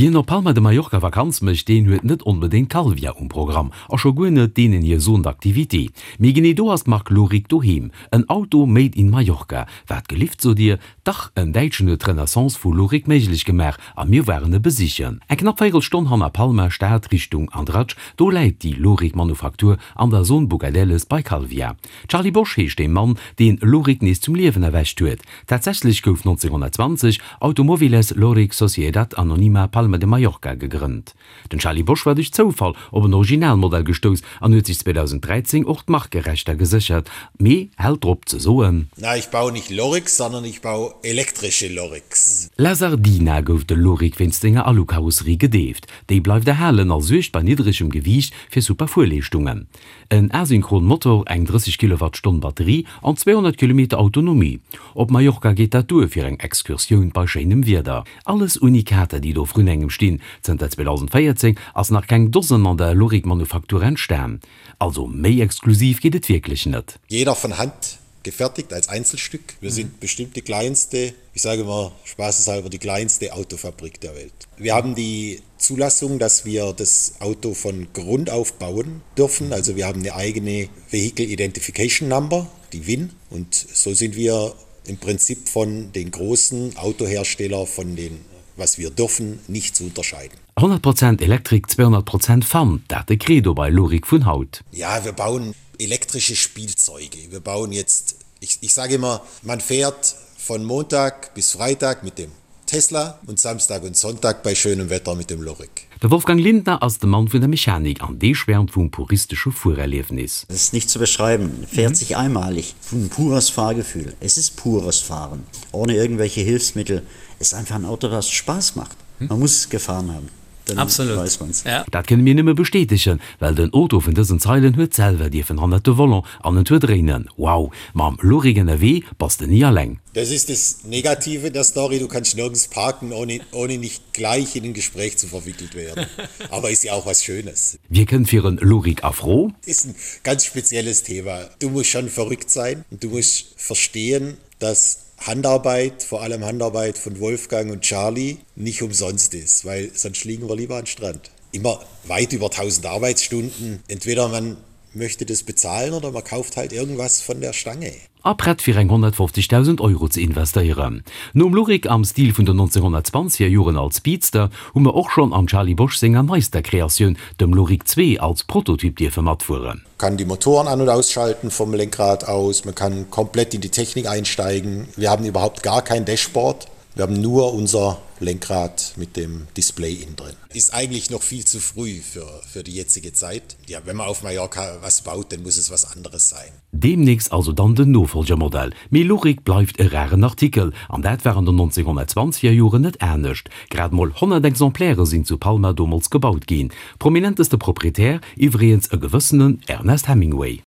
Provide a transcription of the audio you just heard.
Wien op Palma de Mallorca Vakanz mécht, deen huet net onbedéngt Calvia um Programm a scho guer net deenen hir Zone d'activité. Mee genee do ass d'Mark Loric doheem. En Auto made in Mallorca. Wat gelift, sot dir? Dach, en Däitschen huet d'Renaissance vu Loric méiglech gemaach a mir waren e besichen. Eng knapp véierel Stonn hanner Palma Stad Richtung Andratx, do läit déi Loric Manufaktur an der Zone Bugadelles bei Calvia. Charlie Bosch heescht dee Mann, deen Loric nees zum Liewen erwächt huet. Tatsächlech gouf 1920 Automóviles Loric Sociedad Anónima Palma de Mallorca gegrënnt. Den Charlie Bosch war duerch Zoufall op en Originalmodell gestouss an huet sech 2013 och d'Markerechter geséchert, mee hält drop ze soen. Na, ich baue nicht Lorics, sondern ich baue elektrische Lorics. La Sardina gouf de Loric wéinst senger Alukarosserie gedeeft. Déi bleift erhalen a suergt bei niddregem Gewiicht fir super Fuerleeschtungen. En asynchron Motor, eng 30 Kilowattstonn Batterie an 200 Kilometer Autonomie. Op Mallorca geet dat duer fir eng Excursioun bei schéinem Wieder. Alles Unikater, déi do vrun engem stinn. Zënter 2014 ass nach keng Dosen an der Loric-Manufaktur entstan. Also méi exklusiv geet et wierklech net. Jeder von Hand gefertigt als Einzelstück. Wir sind bestimmt die kleinste, ich sage immer spaßeshalber die kleinste Autofabrik der Welt. Wir haben die Zulassung, dass wir das Auto von Grund auf bauen dürfen. Also wir haben eine eigene Vehicle Identification Number, die WIN und so sind wir im Prinzip von den großen Autohersteller von den was wir dürfen, nicht zu unterscheiden. 100 Prozent Elektrik, 200 Prozent Fun, dat de Credo bei Loric vun haut. Ja, wir bauen elektrische Spielzeuge. Wir bauen jetzt, ich, ich sage immer, man fährt von Montag bis Freitag mit dem Tesla und Samstag und Sonntag bei schönem Wetter mit dem Loric. De Wolfgang Lindner ass de Mann vun der Mechanik an dee schwärmt vum puristesche Fuererliefnis. Das ist nicht zu beschreiben, fährt sich einmalig, ein pures Fahrgefühl. Es ist pures Fahren, ohne irgendwelche Hilfsmittel. Es ist einfach ein Auto, was Spaß macht. Man muss es gefahren haben, dann Absolut. weiß man's. Ja. Dat kënne mir nëmme bestätegen, well den Auto vun dësen Zeilen huet selwer dierfen hannert de Volant an en Tour dréinen. Wow, mam Loric ënnerwee bass de ni alleng. Das ist das Negative der Story, du kannst nirgends parken, ohne, ohne nicht gleich in ein Gespräch zu verwickelt werden. Aber ist ja auch was Schönes. Wie kënnt fir en Loric a Fro? Ist ein ganz spezielles Thema. Du musst schon verrückt sein und du musst verstehen, dass Handarbeit, vor allem Handarbeit von Wolfgang und Charlie, nicht umsonst ist, weil sonst liegen wir lieber am Strand. Immer weit über 1000 Arbeitsstunden. Entweder man möchte das bezahlen oder man kauft halt irgendwas von der Stange. A prett fir eng 150.000 Euro ze investéieren. Nom Loric am Stil vun den 1920er Joren als Speedster hu mer och schonn am Charlie Bosch senger neister Kreatioun, dem Loric 2, als Prototyp dierfe matfueren. Kann die Motoren an und ausschalten vom Lenkrad aus, man kann komplett in die Technik einsteigen. Wir haben überhaupt gar kein Dashboard. Wir haben nur unser Lenkrad mit dem Display innen drin. Ist eigentlich noch viel zu früh für, für die jetzige Zeit. Ja, wenn man auf Mallorca was baut, dann muss es was anderes sein. Deemnächst also dann den Nofolgermodell. Mee Loric bleift e raren Artikel, an dat war an den 1920er Joren net anescht. Grad mol 100 Exemplaire sinn zu Palma domols gebaut ginn. Prominenteste Proprietär iwwregens e gewëssenen Ernest Hemingway.